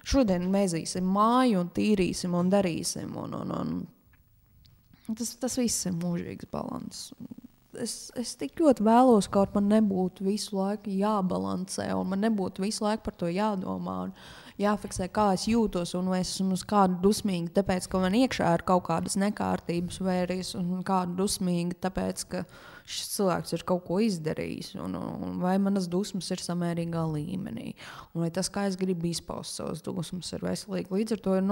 šodien mēzīsim māju un tīrīsim un darīsim, un tas viss ir mūžīgs balans. Es tik ļoti vēlos, kaut man nebūtu visu laiku jābalansē, un man nebūtu visu laiku par to jādomā, un jāfiksē, kā es jūtos, un vai es esmu uz kādu dusmīgi, tāpēc, ka man iekšā ir kaut kādas nekārtības, vai arī es esmu kādu dusmīgi, tāpēc, ka šis cilvēks ir kaut ko izdarījis, un vai manas dusmas ir samērīgā līmenī, un vai tas, kā es gribu izpaust savas dusmas, ir veselīgi. Līdz ar to ir,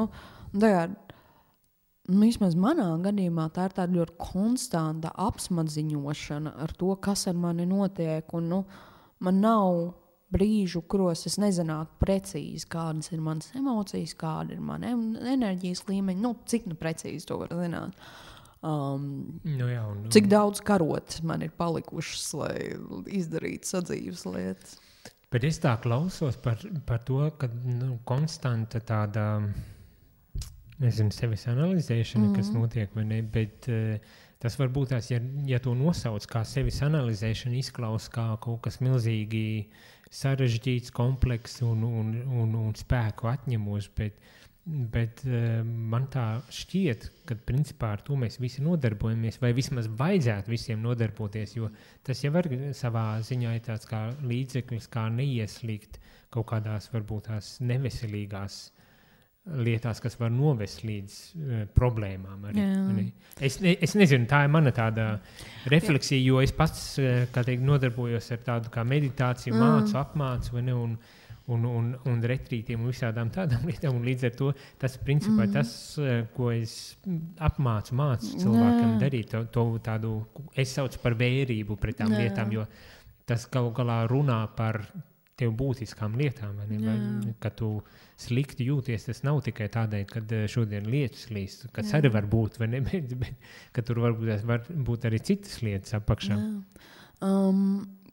vismaz manā gadījumā tā ir tāda ļoti konstanta apsmadziņošana ar to, kas ar mani notiek, un man nav brīžu, kuros es nezinātu precīzi, kādas ir manas emocijas, kāda ir mana enerģijas līmeņa, cik precīzi to var zināt. Cik daudz karotes man ir palikušas, lai izdarītu sadzīves lietas. Bet es tā klausos par to, ka konstanta tāda, nezinu, sevis analizēšana, kas notiek, vai ne, bet tas varbūt tās, ja to nosauc kā sevis analizēšana, izklaus kā kaut kas milzīgi sarežģīts, komplekss un spēku atņemos, bet man tā šķiet, ka principā ar to mēs visi nodarbojamies, vai vismaz vajadzētu visiem nodarboties, jo tas jau var savā ziņā ir tāds kā līdzeklis, kā neieslīgt kaut kādās varbūt tās neveselīgās lietās, kas var novest līdz problēmām. Arī. Es nezinu, tā ir mana tāda refleksija, jo es pats, kā teikt, nodarbojos ar tādu kā meditāciju, mācu, apmācu, vai ne, un retrītiem un visādām tādām lietām, un līdz ar to tas principā tas, ko es mācu cilvēkam darīt, to tādu, es saucu par vērību pret tām lietām, jo tas kaut galā runā par tev būtiskām lietām, vai ne? Vai, kad tu slikti jūties, tas nav tikai tādēļ, kad šodien lietas līst, kas arī var būt, vai ne, bet ka tur var būt arī citas lietas apakšā.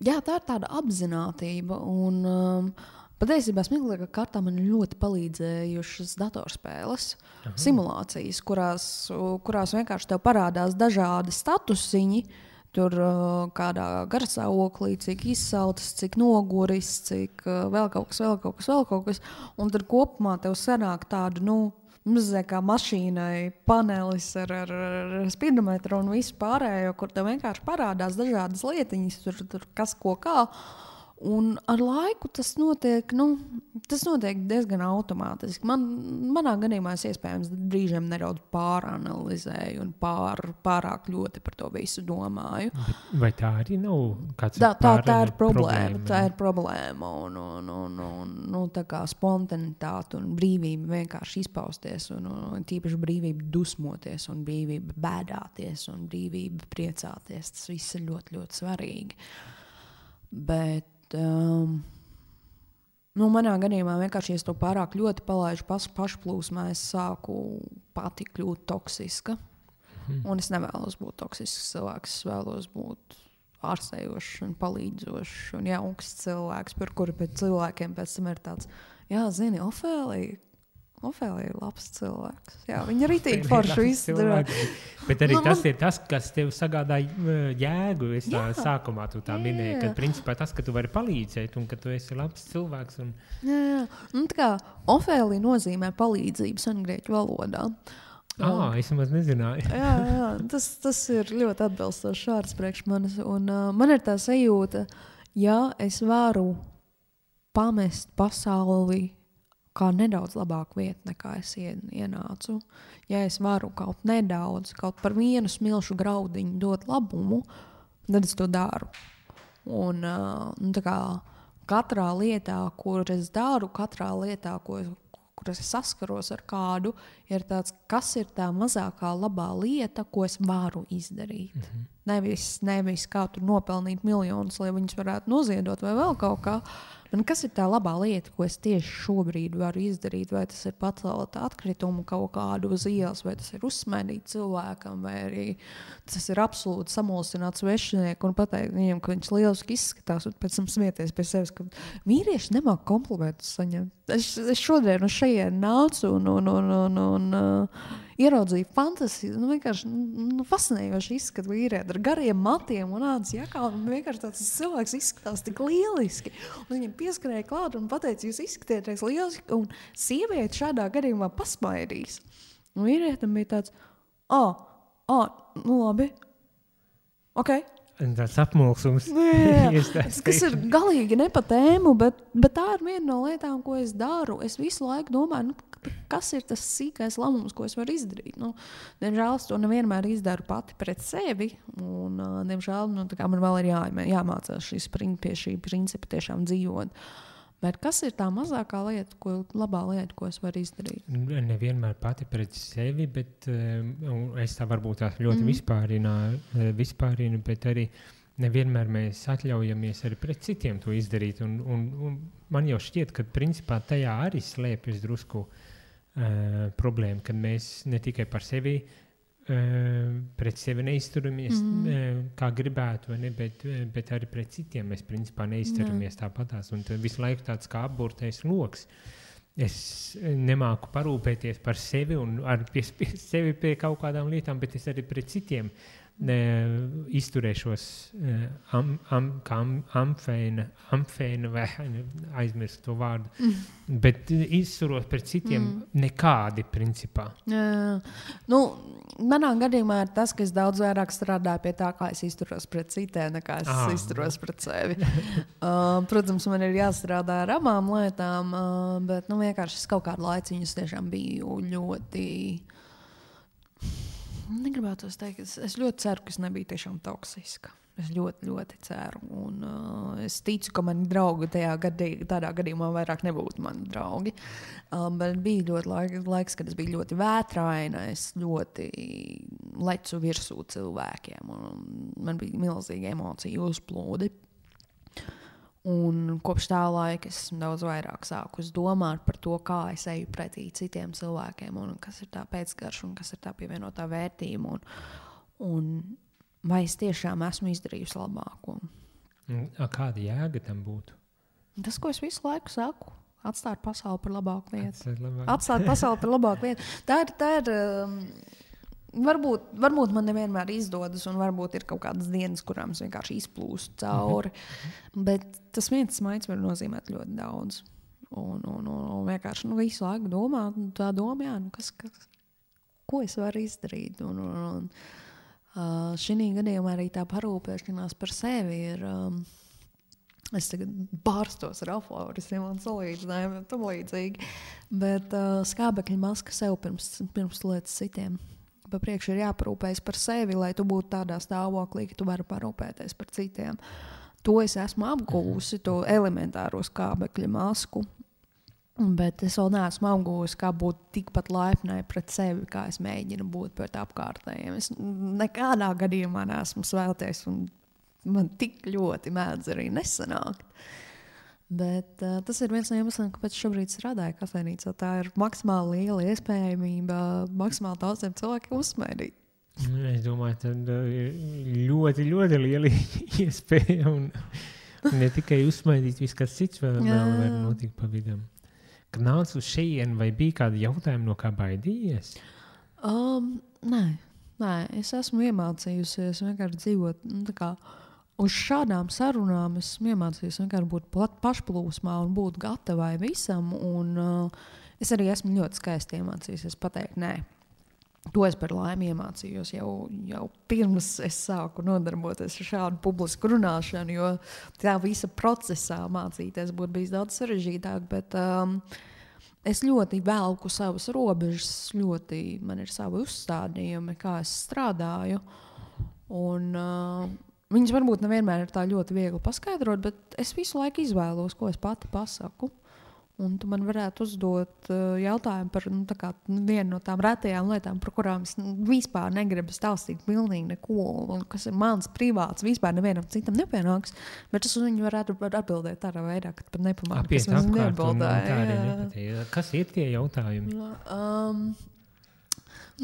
Jā, tā ir tāda apzinātība, un patiesībā smieklīgā kārtā man ļoti palīdzējušas datorspēles, simulācijas, kurās vienkārši tev parādās dažādi statusiņi, tur kādā garstāvoklī, cik izsaltas, cik noguris, cik vēl kaut kas. Un tad kopumā tev sanāk tādu, mazliet kā mašīnai panelis ar spidometru un visu pārējo, kur tev vienkārši parādās dažādas lietiņas, tur kas ko kā. Un ar laiku tas notiek diezgan automātiski. Manā gadījumā es iespējams brīžiem nedaudz pāranalizēju un pārāk ļoti par to visu domāju. Vai tā arī nav kāds tā ir problēma? Tā ir problēma un tā kā spontanitāte un brīvība vienkārši izpausties un tīpaši brīvība dusmoties un brīvība bēdāties un brīvība priecāties. Tas viss ir ļoti, ļoti svarīgi. Bet manā gadījumā vienkārši, ja es to pārāk ļoti palaidu pašplūsmā, es sāku pati kļūt toksiska. Un es nevēlos būt toksisks cilvēks, es vēlos būt ārstējošs un palīdzošs un jauks cilvēks, par kuru pēc cilvēkiem pēc tam ir tāds, jā, zini, Ofēlija ir labs cilvēks. Jā, viņa ritīgi forši izdara. Bet arī tas ir tas, kas tev sagādā jēgu. Es sākumā tu tā minēji, ka principā tas, ka tu vari palīdzēt un ka tu esi labs cilvēks. Jā. Tā kā Ofēlija nozīmē palīdzību sengrieķu valodā. Es maz nezināju. jā, tas ir ļoti atbilstošs vārds priekš manis. Un man ir tā sajūta, ja es varu pamest pasauli kā nedaudz labāku vietu, nekā es ienācu. Ja es varu kaut par vienu smilšu graudiņu dot labumu, tad es to daru. Un tā kā katrā lietā, kur es daru, katrā lietā, kur es saskaros ar kādu, ir tāds, kas ir tā mazākā labā lieta, ko es varu izdarīt. Nevis kā tur nopelnīt miljonus, lai viņus varētu noziedot vai vēl kaut kā. Un kas ir tā labā lieta, ko es tieši šobrīd varu izdarīt? Vai tas ir pacelt atkritumu kaut kādu uz ielas, vai tas ir uzsmaidīt cilvēkam, vai arī tas ir absolūti samulsināt svešinieku un pateikt viņam, ka viņš lieliski izskatās, un pēc tam smieties pie sevis, ka vīrieši nemāk komplimentus saņemt. Es šodien uz šajien nācu un ieraudzīju fantasiju, vienkārši fascinējoši izskatu vīrieti ar gariem matiem un ādas jakā, un vienkārši tāds cilvēks izskatās tik lieliski. Un viņam pieskarēja klāt un pateica, jūs izskatieties lieliski, un sieviete šādā gadījumā pasmaidīs. Un vīrietim bija tāds, labi, ok. Tas apmulsums. Kas ir galīgi ne pa tēmu, bet tā ir viena no lietām, ko es daru. Es visu laiku domāju, kas ir tas sīkais lēmums, ko es varu izdarīt. Diemžēl es to nevienmēr izdaru pati pret sevi, un diemžēl man vēl ir jāmācās pie šī principa tiešām dzīvot. Bet kas ir tā mazākā lieta, labā lieta, ko es varu izdarīt? Nevienmēr pati pret sevi, bet es tā varbūt tās ļoti vispārinu, bet arī nevienmēr mēs atļaujamies arī pret citiem to izdarīt. Un man jau šķiet, ka principā tajā arī slēpjas drusku problēma, kad mēs ne tikai par sevi pret sevi neizturamies kā gribētu, vai ne, bet arī pret citiem mēs principā neizturamies tāpatās. Un tad visu laiku tāds kā apburtais loks. Es nemāku parūpēties par sevi un piespiest sevi pie kaut kādām lietām, bet es arī pret citiem izturēšos kā amfēna vai aizmirst to vārdu, bet izturos pret citiem nekādi principā. Nu, manā gadījumā ir tas, ka es daudz vairāk strādāju pie tā, kā es izturos pret citiem, nekā es izturos pret sevi. Protams, man ir jāstrādā ar abām lietām, bet vienkārši es kaut kādu laiciņu tiešām biju ļoti... Negribētu teikt, es ļoti ceru, ka es nebiju tiešām toksiska. Es ļoti, ļoti ceru. Un, es ticu, ka mani draugi tādā gadījumā vairāk nebūtu mani draugi. Bet bija ļoti laiks, kad es biju ļoti vētraina. Es ļoti lecu virsū cilvēkiem. Man bija milzīgi emociju uzplūdi. Un kopš tā laika es daudz vairāk sāku domāt par to, kā es eju pretī citiem cilvēkiem un kas ir tā pēcgarša un kas ir tā pievienotā vērtība un vai es tiešām esmu izdarījusi labāko. Kāda jēga tam būtu? Tas, ko es visu laiku saku, atstāt pasauli par labāku lietu. Atstāt pasauli par labāku lietu. Tā ir Varbūt man nevienmēr izdodas, un varbūt ir kaut kādas dienas, kurām es vienkārši izplūstu cauri. Bet tas viens smaids var nozīmēt ļoti daudz. Un vienkārši visu laiku domāt, tā domā, ko es varu izdarīt. Šī gadījumā arī tā parūpēšanās par sevi ir. Es tagad bārstos ar aforismiem un salīdzinājumiem un tam līdzīgi. Bet skābekļa maska sev pirms lietas citiem. Pa priekšu ir jāparūpējas par sevi, lai tu būtu tādā stāvoklī, ka tu vari parūpēties par citiem. To es esmu apguvusi, to elementāro skābekļa masku, bet es vēl neesmu apguvusi, kā būt tikpat laipnai pret sevi, kā es mēģinu būt pret apkārtējiem. Es nekādā gadījumā neesmu svēlties, un man tik ļoti mēdz arī nesanākt. Bet tas ir viens no iemesliem, kāpēc šobrīd strādāju kafejnīcā. Tā ir maksimāli liela iespējamība maksimāli daudziem cilvēkiem uzsmēdīt. Es domāju, ka ir ļoti, ļoti liela iespēja un ne tikai uzsmēdīt, viss kas cits vēl var notikt pa vidam. Kad nāc uz šejienu, vai bija kādi jautājumi, no kā baidījies? Nē, es esmu iemācījusies vienkārši dzīvot tā kā uz šādām sarunām. Es iemācījos vienkārši būt pašplūsmā un būt gatavai visam. Un, es arī esmu ļoti skaisti iemācījusies pateikt nē. To es par laimi iemācījos jau pirms es sāku nodarboties ar šādu publisku runāšanu, jo tā visa procesā mācīties būtu bijis daudz sarežģītāk, bet es ļoti velku savas robežas, man ir savi uzstādījumi, kā es strādāju, un viņas varbūt nevienmēr ir tā ļoti viegli paskaidrot, bet es visu laiku izvēlos, ko es pati pasaku. Un tu man varētu uzdot jautājumu par vienu no tām retajām lietām, par kurām es vispār negribu stāstīt pilnīgi neko, un kas ir mans privāts, vispār nevienam citam nepienāks, bet es uz viņu varētu atbildēt tādā veidā, ka pat nepamāku, kas man neatbildēja. Kas ir tie jautājumi?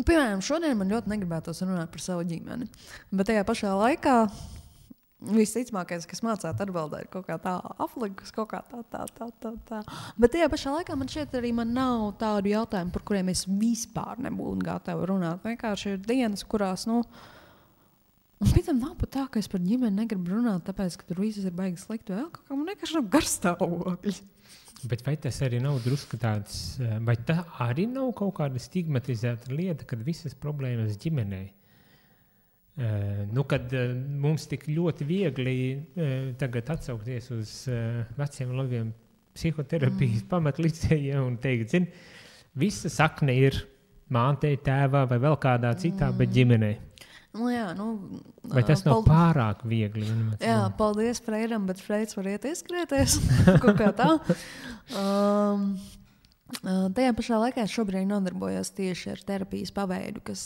Piemēram, šodien man ļoti negribētos runāt par savu ģimeni, bet tajā pašā laikā visticamākais, kas mācāt atbildēt kaut kā tā aflikus, kaut kā tā. Bet tajā pašā laikā man šķiet arī man nav tādu jautājumu, par kuriem es vispār nebūtu gatava runāt. Vienkārši ir dienas, kurās, un pēc tam nav pat tā, ka es par ģimeni negribu runāt, tāpēc, ka tur viss ir baigi slikti, vēl kaut kā man vienkārši nav garstāvokļi. Bet vai tas arī nav drusku tāds, vai tā arī nav kaut kāda stigmatizēta lieta, kad visas problēmas ģimenei? Kad mums tik ļoti viegli tagad atsaukties uz veciem labiem psihoterapijas pamatlicējiem un teikt, visa sakne ir mātei, tēvā vai vēl kādā citā, bet ģimenei. Vai tas nav pārāk viegli? Jā, paldies Freidam, bet Freids var iet ieskrieties. Kaut kā tā. Tajā pašā laikā es šobrīd nodarbojos tieši ar terapijas paveidu, kas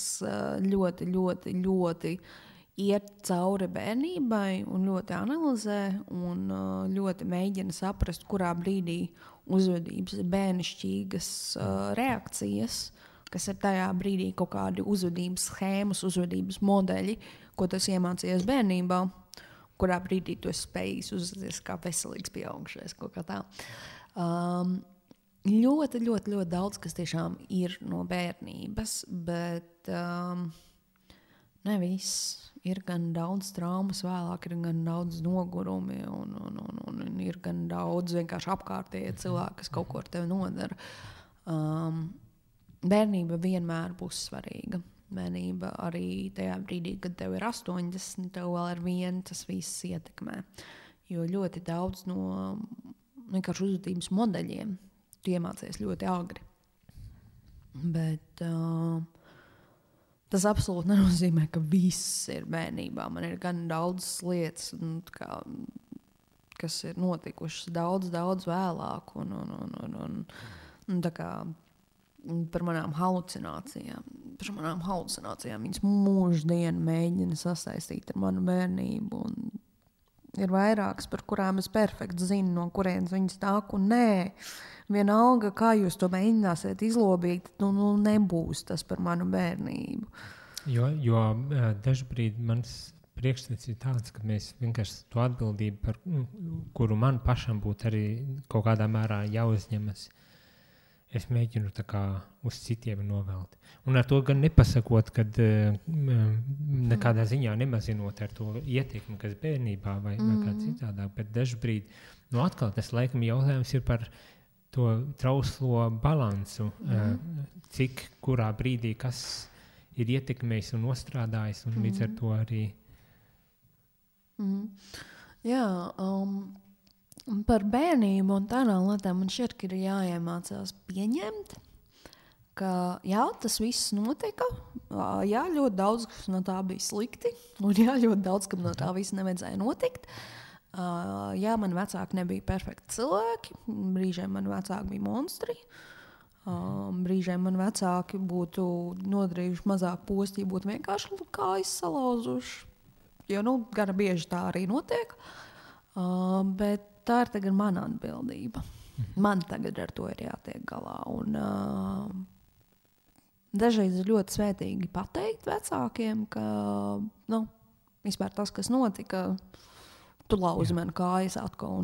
ļoti, ļoti, ļoti iet cauri bērnībai un ļoti analizē un ļoti mēģina saprast, kurā brīdī uzvedības ir bērnišķīgas reakcijas kas ir tajā brīdī kaut kādi uzvedības schēmas, uzvedības modeļi, ko tu iemācījies bērnībā, kurā brīdī tu esi spējis uzvesties kā veselīgs pieaugušais, kaut kā tā. Ļoti, ļoti, ļoti daudz, kas tiešām ir no bērnības, bet ne viss. Ir gan daudz traumas vēlāk, ir gan daudz nogurumi un ir gan daudz vienkārši apkārtējie cilvēki, kas kaut ko ar tevi nodara. Bērnība vienmēr būs svarīga. Bērnība arī tajā brīdī, kad tev ir 80, tev vēl ar vienu tas viss ietekmē. Jo ļoti daudz no vienkārši uzvedības modeļiem tu iemācies ļoti agri. Bet tas absolūti nenozīmē, ka viss ir bērnībā. Man ir gan daudz lietas, kas ir notikušas daudz vēlāk. Un tā kā par manām halucinācijām. Viņas mūždienu mēģina sasaistīt ar manu bērnību. Un ir vairākas, par kurām es perfekti zinu, no kurienes viņas nāk. Un nē, vienalga, kā jūs to mēģināsiet izlobīt, nebūs tas par manu bērnību. Jo dažbrīd mans priekšstats ir tāds, ka mēs vienkārši to atbildību, par kuru man pašam būtu arī kaut kādā mērā jāuzņemas, es mēģinu tā kā uz citiem novelt. Un ar to gan nepasakot, kad nekādā ziņā nemazinot ar to ietekmi, kas bērnībā vai kā citādāk, bet dažbrīd, atkal tas laikam jautājums ir par to trauslo balansu, cik kurā brīdī kas ir ietekmējis un nostrādājis, un līdz ar to arī. Jā, par bērnību un tādām lietām man šķiet, ka ir jāiemācās pieņemt, ka jā, tas viss notika, jā, ļoti daudz kas no tā bija slikti, un jā, ļoti daudz kam no tā viss nevajadzēja notikt. Jā, mani vecāki nebija perfekti cilvēki, brīžiem mani vecāki bija monstri, brīžiem mani vecāki būtu nodarījuši mazāk posti, ja būtu vienkārši kājas salauzuši, jo gana bieži tā arī notiek, bet tā ir tagad mana atbildība. Man tagad ar to ir jātiek galā, un dažreiz ir ļoti svētīgi pateikt vecākiem, ka vispār tas, kas notika, tu lauzi man kājas atkal.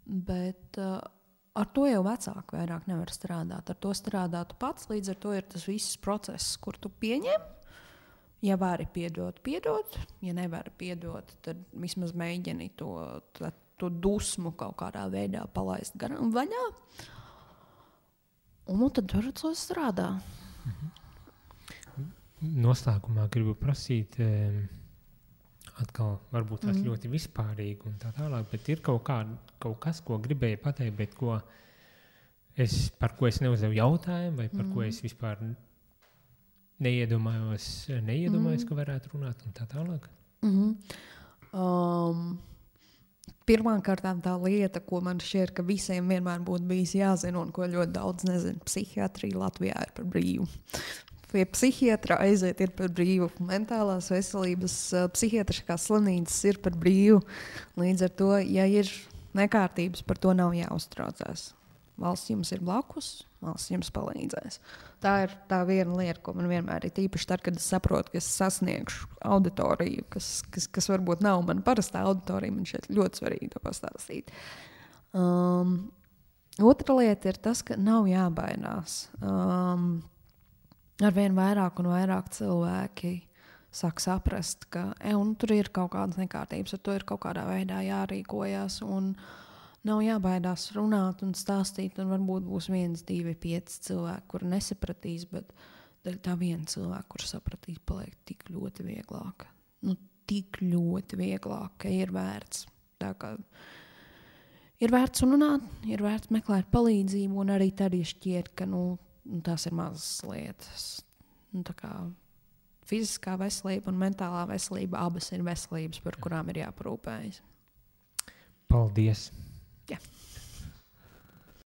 Bet ar to jau vecāki vairāk nevar strādāt. Ar to strādā tu pats, līdz ar to ir tas viss process, kur tu pieņem. Ja vari piedot, ja nevari piedot, tad vismaz mēģini to dusmu kaut kādā veidā palaist garām vaļā. Un tad ar to strādā. Noslēgumā gribu prasīt, atkal varbūt tas ļoti vispārīgi un tā tālāk, bet ir kaut kas, ko gribēju pateikt, bet par ko es neuzdevu jautājumu, vai par ko es vispār neiedomājos, ka varētu runāt un tā tālāk? Pirmkārt, tā lieta, ko man šķiet, ka visiem vienmēr būtu bijis jāzina un ko ļoti daudz nezina, psihiatrija Latvijā ir par brīvu. Pie psihiatra aiziet ir par brīvu. Mentālās veselības psihiatriskās slimnīcas ir par brīvu. Līdz ar to, ja ir nekārtības, par to nav jāuztraucās. Valsts jums ir blakus, valsts jums palīdzēs. Tā ir tā viena lieta, ko man vienmēr ir tīpaši tad, kad es saprotu, ka es sasniegšu auditoriju, kas varbūt nav mana parastā auditorija, man šeit ļoti svarīgi to pastāstīt. Otra lieta ir tas, ka nav jābaidās. Arvien vairāk un vairāk cilvēki sāk saprast, ka tur ir kaut kādas nekārtības, ar to ir kaut kādā veidā jārīkojas, un nav jābaidās runāt un stāstīt, un varbūt būs 1, 2, 5 cilvēki, kuri nesapratīs, bet tā viena cilvēka, kur sapratīs, paliek tik ļoti vieglāk. Tik ļoti vieglāk, ka ir vērts. Tā kā ir vērts runāt, ir vērts meklēt palīdzību, un arī tad šķiet, ka tās ir mazas lietas. Tā kā fiziskā veselība un mentālā veselība abas ir veselības, par kurām ir jāparūpējas. Paldies! Jā.